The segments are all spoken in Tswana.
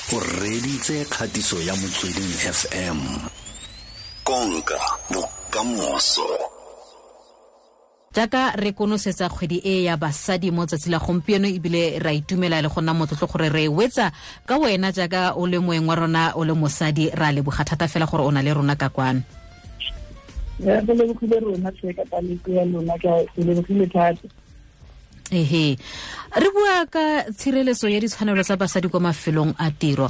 O reditse kgatiso ya Motsweding FM. Konka bokamoso. Jaaka re konosetsa kgwedi e ya basadi mo tsatsi la gompieno, ebile ra itumela le go nna motlotlo gore re wetsa ka wena jaaka o le moeng wa rona, o le mosadi. Ra leboga thata fela gore o na le rona ka kwano. Re lebogile rona tlhe ka taleko ya lona, ke lebogile thata. Ehe, re bua ka tshireletso ya ditshwanelo tsa basadi kwa mafelong a tiro.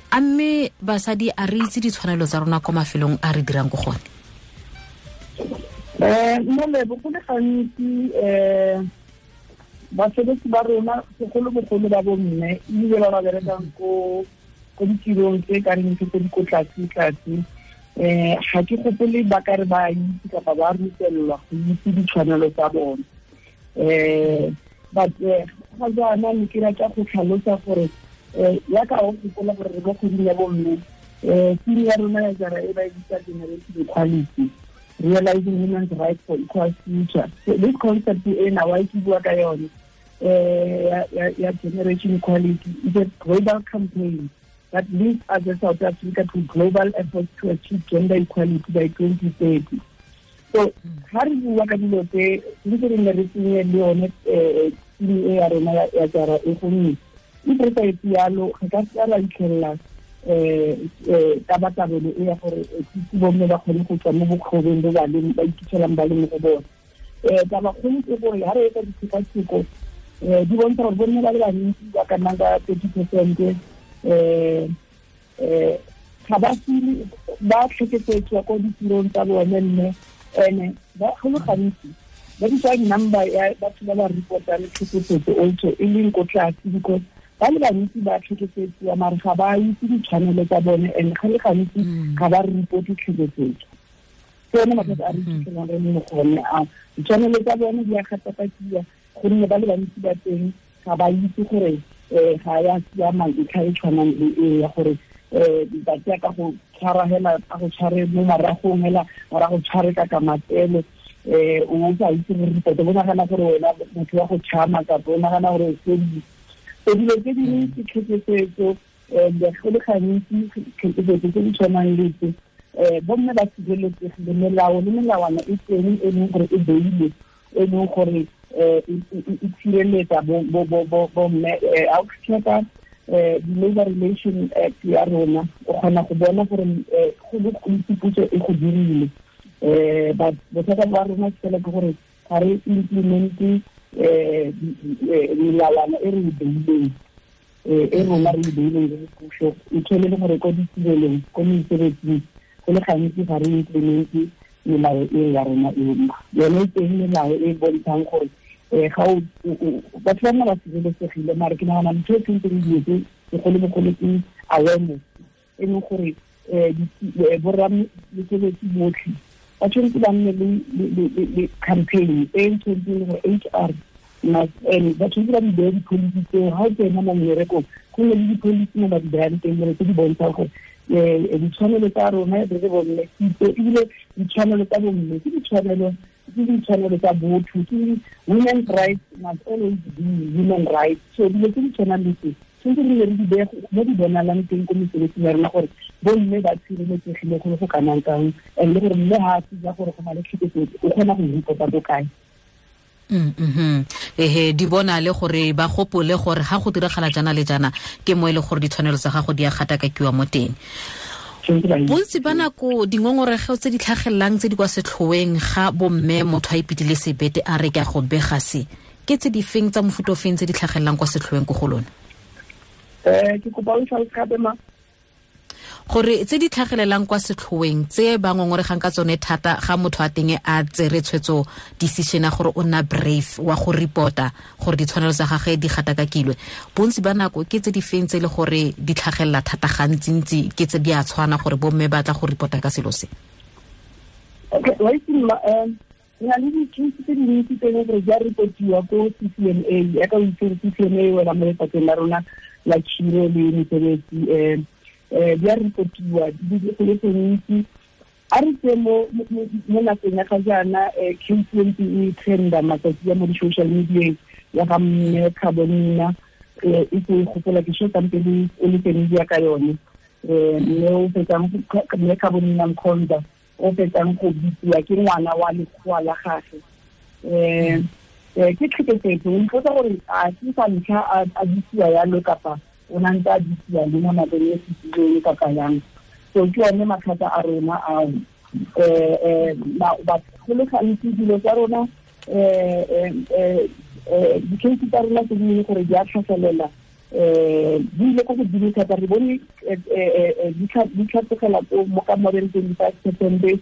A mme basadi a re itse ditshwanelo tsa rona kwa mafelong a re dirang ko gone? Mo lebo go le gantsi basebetsi ba rona, segolobogolo ba bomme, ebile ba ba berekang ko ditirong tse ka reng tse di ko tlase-tlase, ga ke gopole ba ka re ba itse kapa ba rutelelwa go itse ditshwanelo tsa bone. But ga jaana ne ke rata go tlhalosa gore yaka o gopola gore re mo kgweding ya bomme, theme ya rona ya jara e ba e bitsa Generation Equality, Realizing Women's Rights for Equal Future. So this concept ena wa ke bua ka yone ya Generation Equality is a global campaign that leads us as South Africa to global efforts to achieve gender equality by 2030. So ha re bua ka dilo tse ntse re nne re tsenye le yone theme e ya rona ya jara e, gonne if re sa etse yalo re ka seka ra itlhelela tabatabelo e ya gore bomme ba kgone go tswa mo bokgobeng bo ba leng, ba iphitlhelang ba le mo go bone. Tabakgolo ke gore ha re etsa ditshekatsheko, di bontsha gore bomme ba le bantsi ba ka nnang ka 30% ga ba file ba tlhekefetswa ko ditirong tsa bone, mme ene ba go le gantsi ba bitsa number ya batho ba ba reportang tlhekefetso also e leng ko tlase, because ba le bantsi ba tlhekefetsiwa mare ga ba itse ditshwanelo tsa bone, and ga le gantsi ga ba reporte tlhekefetso. Ke yone mathata a re iphitlhelang re le mo go one ao. Ditshwanelo tsa bone di a gatakakiwa gonne ba le bantsi ba teng ga ba itse gore ga ya siama ntlha e tshwanang le e ya gore ba tsaya ka go tshwara hela, ka go tshware mo maragong hela, ora go tshware ka matsele, o sa itse gore report, o nagana gore wena motho wa go tšhama kapa o nagana gore o fedile. So dilo tse dingwe ke tlhekefetso, go le gantsi tlhekefetso tse di tshwanang le tse, bomme ba sireletsegile, melao le melawana e teng e leng gore e beilwe, e leng gore e tshireletsa bomme. Ha o checka di-Labor Relation Act ya rona, o kgona go bona gore go le gontsi puso e go dirile, but bothata ba rona ke fela ke gore ga re implemente melawana e re e beileng, e rona re e beileng re le puso. E tshwane le gore ko ditirelong, ko mesebetsing, go le gantsi ga re implemente melao e ya rona eno. Yone e teng melao e bontshang gore ga o batho ba nna ba sireletsegile, mare ke nagana ntho e tshwanetseng di etse segolobogolo ke awareness, e leng gore borra mesebetsi botlhe ba tshwanetse ba nne le campaign e tshwanetseng gore HR and ba tshwanetse ba di beye di-policy tseo. Ga o tsena mo mmerekong, go nne le di-policy mo ba di bayang teng gore tse di bontshang gore ditshwanelo tsa rona re le bomme, ebile ditshwanelo tsa bomme ke ditshwanelo tsa botho, ke women's rights must always be human rights. So dilo tse di tshwanang le tse tshwanetse re ne re di beye mo di bonalang teng ko mesebetsing ya rona, gore bomme ba tshireletsegile go le go kanang kang, and le gore mme ga a tsija gore go na le tlhekefetso, o kgona go reporta ko kae. Ehe, di bona le gore ba gopole gore ga go diragala jana le jana ke mo e le gore ditshwanelo tsa gago di a gatakakiwa mo teng. Bontsi ba nako dingongorego tse di tlhagelelang, tse di kwa setlhoeng ga bomme, motho a ipitile sebete a re ke a go bega se, ke tse di feng, tsa mofuta o feng tse di tlhagelelang kwa setlhoeng ko go lona? Ke kopa o tlhalose gape ma. Gore tse di tlhagelelang kwa setlhoeng, tse ba ngongoregang ka tsone thata ga motho a teng a tsere tshwetso, decision ya gore o nna brave wa go reporta gore ditshwanelo tsa gagwe di gatakakilwe, bontsi ba nako ke tse di feng tse e le gore di tlhagelela thata gantsintsi, ke tse di a tshwana gore bomme ba tla go reporta ka selo se? Okay, wa itse mma, re na le di-case tse dintsi tse e leng gore di a reportiwa ko CCMA. Yaka o itse gore CCMA wela mo lefapheng la rona la khiro le mesebetsi. Di a reportiwa di go le gontsi. A re tse mo nakong ya ga jaana, case e ntse e trenda matsatsi a mo di-social media ya ga mme Carbonina. e se gopola ke sho tsampele o le teng ya ka yone mme o fetsang mme ka bonina Mkhonza o fetsang go bitsiwa ke ngwana wa lekgowa la gagwe. Ke tlhekefetso, o mpotsa gore a ke sa ntlha a bitsiwa yalo kapa o na ntse a bitsiwa le mo nakong e fetileng kapa yang. So ke one mathata a rona ao. Go le gantsi dilo tsa rona di-case tsa rona tse dingwe gore di a tlhagelela di ile ko godimo thata, re bone di tlhatlogela mo ka more than 25%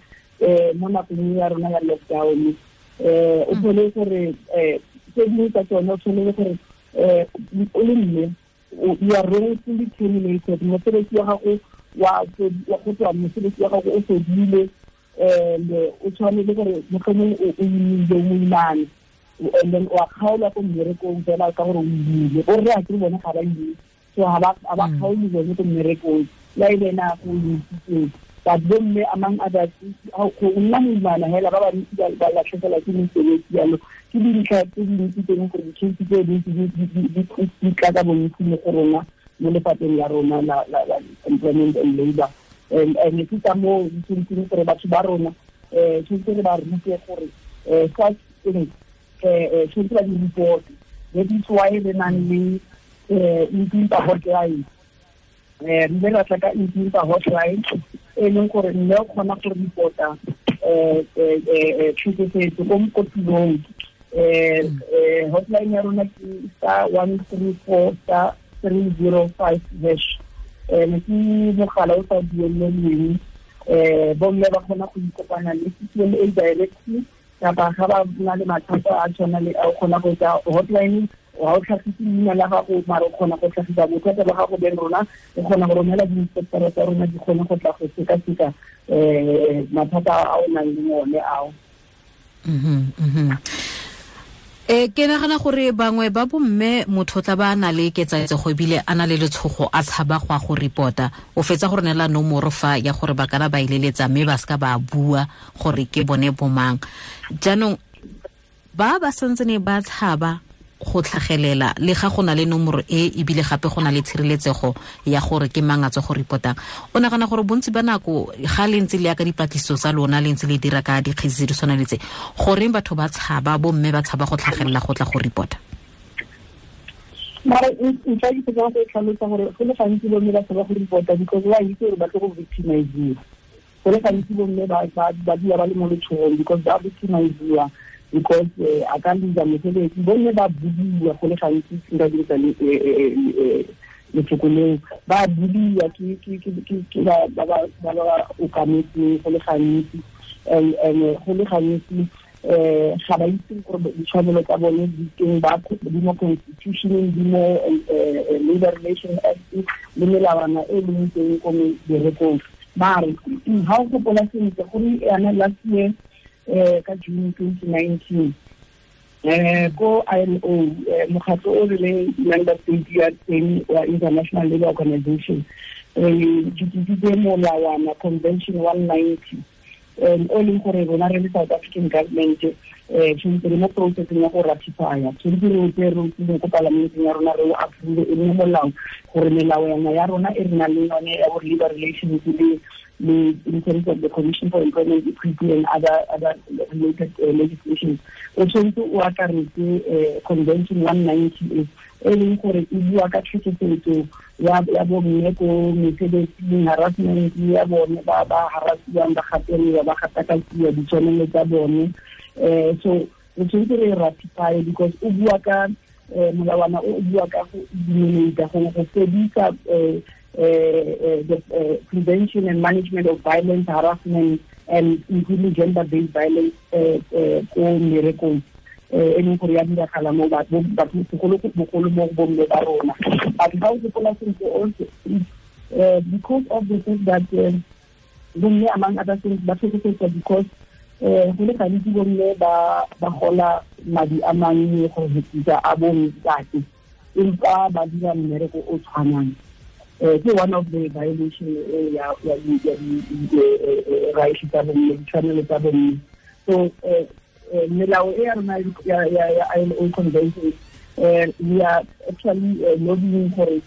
mo nakong ya rona ya lockdown. O thole gore tse dingwe tsa tsone o tshwanele gore o le mme you are wrongfully terminated, mosebetsi wa gago wa go tswa mosebetsi wa gago o fedile, and o tshwanele gore mohlomong o imile o moimane, and then o a kgaolwa ko mmerekong fela ka gore o imile, borre a ke bone ga ba imile, so ga ba kgaole bone ko mmerekong la e le ena go imitsitseng. But bomme among others go nna moimana hela ba bantsi ba latlhegelwa ke mesebetsi yalo. Ke dintlha tse dintsi tse leng gore di-case tse dintsi di tla ka bontsi mo go rona mo lefapheng la rona la employment and labor. And ke ka moo di tshwanetseng gore batho ba rona tshwanetse re ba rute gore such things tshwanetse ba di report. That is why re nang le Impimpa hotline. Re ile ra tla ka Impimpa hotline e leng gore mme o kgona go reporta tlhekefetso ko mokotulong. Hotline ya rona ke *134 *305#. Ke mogala o sa duelelweng, bomme ba kgona go ikopana le CCMA directly kapa ga ba na le mathata a tshwana le a o kgona go etsa hotline, ga o tlhagise leina la gago mare o kgona go tlhagisa bothata ba gago beng rona, o kgona go romela di-inspectora tsa rona di kgone go tla go sekaseka mathata a o nang le one ao. Ke nagana gore bangwe ba bomme motho tla ba na le ketsaetsego ebile a na le letshogo a tshaba go a go reporta, o fetsa gore neela nomoro fa ya gore ba kana ba ileletsa mme ba seka ba bua gore ke bone bomang. Jaanong ba ba santsene ba tshaba go tlhagelela le ga go na le nomoro e ebile gape go na le tshireletsego ya gore ke mang a tswa go reportang, o nagana gore bontsi ba nako ga le ntse le ya ka dipatlisiso tsa lona le ntse le dira ka dikgetse tse di tshwanang le tse, goreng batho ba tshaba, bomme ba tshaba go tlhagelela go tla go reporta? Mara ntlha ke tsaya go tlhalosa gore go le gantsi bomme ba tshaba go reporta because ba itse gore ba tlo go victimiziwa. Go le gantsi bomme ba dula ba le mo letshogong because ba victimiziwa, because a ka lose mosebetsi, bomme ba budiwa go le gantsi nka dirisa lefoko leo, ba budiwa ke ba ba okametseng go le gantsi, and go le gantsi ga ba itse gore ditshwanelo tsa bone di teng, ba di mo constitution-eng, di mo Labor Relations Act le melawana e leng teng ko meberekong. Mare ga o gopola sentle gore yana last year ka June 2019 ko ILO, mokgatlo o rileng member state ya teng wa International Labour Organization, re ditisitse molawana Convention 190 o leng gore rona re le South African government tshwanetse re mo processeng ya go ratifya, tshwanetse re o tseye re o tsile ko palamenteng ya rona re o approve e nne molao, gore melawana ya rona e re nang le yone ya bo labor relations le in terms of the Commission for Employment Equity and other related legislation, o tshwanetse o akaretse Convention 190 e leng gore e bua ka tlhekefetso ya bomme ko mesebetsing, harassment ya bone, ba ba harassiwang, ba gatelelwa, ba gatakatsiwa ditshwanelo tsa bone. So re tshwanetse re ratify because o bua ka molawana o bua ka go eliminate, go fedisa the prevention and management of violence, harassment, and including gender-based violence ko mmerekong e leng gore ya diragala mo batho segolobogolo mo bomme ba rona. But ga o gopola sentle also, because of the fact that bomme among other things ba tlhekefetswa because go le gantsi bomme ba gola madi a mannye go fetisa a bontate, empa ba dira mmereko o tshwanang. Ke one of the violation ya rights tsa bomme, ditshwanelo tsa bomme. So melao e ya rona ya ILO convention We are actually lobbying gore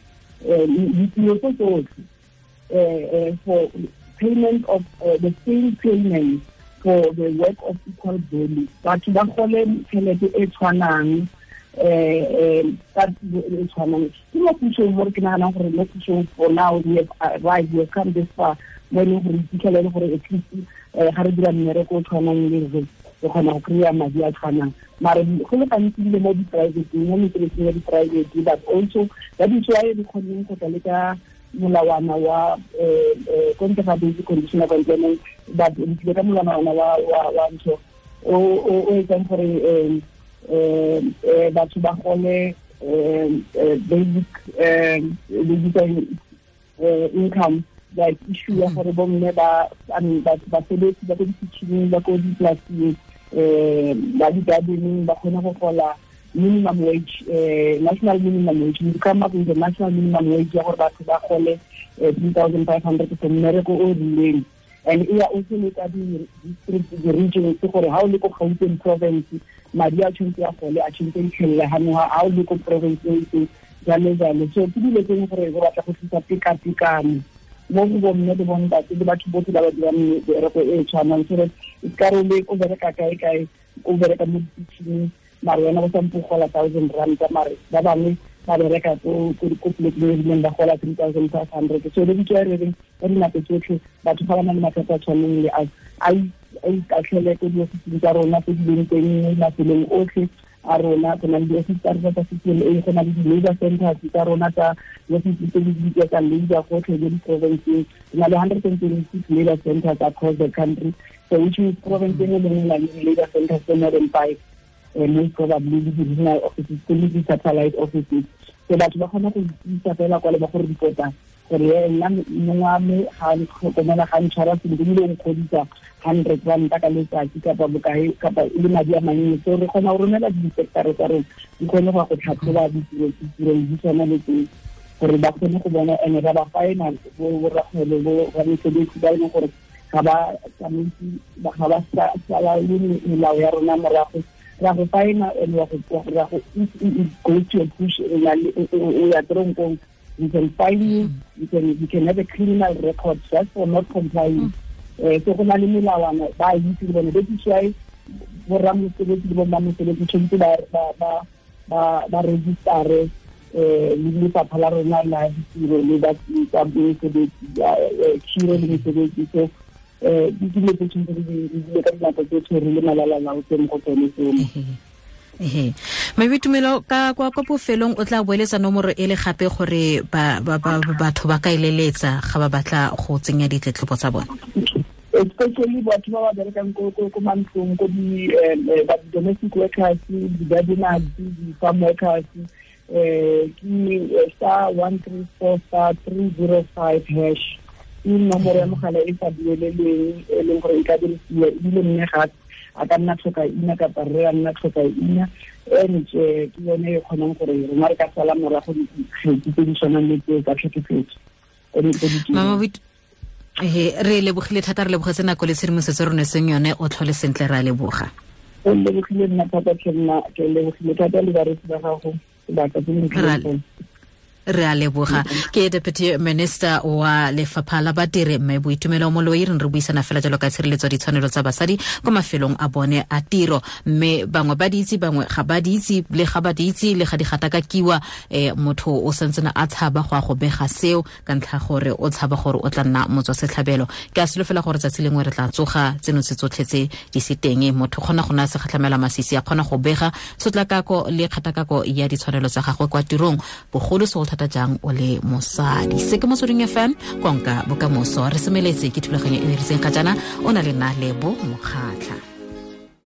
ditiro tse tsotlhe for payment of the same payment for the work of equal value. Batho ba gole tšhelete e tshwanang ka e tshwanang. Ke mo pusong mo re ke naganang gore mo pusong for now we have arrived, we have come this far mo e leng gore iphitlhele gore at least ga re dira mmereko o tshwanang le re kgona go kry-a madi a tshwanang. Mare go le gantsi ebile mo di-private, mo mesebetsing ya di-private, but also that is why re kgonneng go tla le ka molawana wa ko ntle ga basic condition of employment, but re tlile ka molawana wa ntho o etsang gore batho ba gole basic income, like issue ya gore bomme ba basebetsi ba ko ditšhineng, ba ko dipolasing, ba di-gardening ba kgone go gola minimum wage, national minimum wage. We come up with the national minimum wage ya gore batho ba gole 3,500 for mmereko o rileng. And e ya also le ka di-district, di-regions, gore ha o le ko Gauteng province madi a tshwanetse a gole a tshwanetse a itlhelele ha o le ko province e itseng, jalo jalo. So ke dilo tse gore go batla go tlisa tekatekano mo go bomme le bontate le batho botlhe ba ba dirang mebereko e tshwanang, so that e ka re o bereka kae kae, o bereka mo ditšhineng, mare wena o sampo gola 1,000 rand, mare ba bangwe ba bereka ko polekeng e rileng ba gola 3,500. So le ditso e reng ka dinako tsotlhe batho ga ba na le mathata a tshwaneng le a ikatlhele ko diofising tsa rona tse di leng teng mo mafelong otlhe a rona. Go na le diofisi tsa rona tsa CCMA, go na le di-labour centers tsa rona tsa diofisi tse di bitswa tsa labour gotlhe mo di-provinceng. Re na le 126 labour centers across the country, so which means province e nngwe le nngwe na le di-labour centers tse more than 5, most probably le di-regional offices le di-satellite offices. So batho ba kgona go itsa fela kwa le ba go reporta gore nna mongwe wa me ga ntlhokomela, ga ntshwara sentle, ebile o nkgodisa 100 rand ka letsatsi kapa bokae kapa e le madi a mannye. So re kgona go romela di-inspector tsa rona di kgone go ya go tlhatlhoba ditiro di tshwana le tseo gore ba kgone go bona, and ra ba faena borrakgwebo bo ramesebetsi ba e leng gore ga ba tsamaise, ga ba sala le melao ya rona morago. Ra go faena and wa go go to a push o ya tronkong. We can fine you, you can have a criminal record just for not complying. So go na le melawana ba itse le bone. That is why borramosebetsi le bommamosebetsi tshwanetse ba register le lefapha la rona la ditiro le ba tsa mesebetsi, khiro le mesebetsi. So di dilo tse tshwanetse re di dile ka dinako tsotlhe re le malalalaotse mo go tsone tseo. Mme Tumelo, ka kwa bofelong o tla boeletsa nomoro e le gape gore batho ba ka eleletsa ga ba batla go tsenya ditletlebo tsa bone? Especially batho ba ba berekang ko mantlong, ko di domestic workers, di-gardeners, di-farm workers, ke *134 *305# ke nomoro ya mogala e sa duelelweng e leng gore e ka dirisiwa, ebile mme ga a ka nna tlhoka ina kapa rre a nna tlhoka ina, and ke yone e kgonang gore rona re ka sala morago dikgetsi tse di tshwanang le tseo tsa tlhekefetso. Mama re lebogile thata, re lebogetse nako le tshedimosetso re seng yone, o tlhole sentle, re a leboga. O lebogile nna thata, ke nna ke lebogile thata le bareetsi ba gago sebaka se ntle. Re a leboga. Ke Deputy Minister wa Lefapha la Badiri mme Boitumelo Moloi, re buisana fela jalo ka tshireletso ditshwanelo tsa basadi ko mafelong a bone a tiro, mme bangwe ba di itse, bangwe ga ba di itse, le ga ba di itse le ga di gatakakiwa, motho o santsene a tshaba go a go bega seo ka ntlha gore o tshaba gore o tla nna motswa setlhabelo. Ke a solofela gore tsatsi lengwe re tla tsoga tseno tse tsotlhe tse di se teng, motho kgona go nna segatlhamela masisi, a kgona go bega tshotlakako le kgatakako ya ditshwanelo tsa gagwe kwa tirong, bogolo segolo thata jang o le mosadi. Se ke Motsweding FM, konka bokamoso. Re semeletse ke thulaganyo e e ritseng ga jaana, o na le nna Lebo Mokgatlha.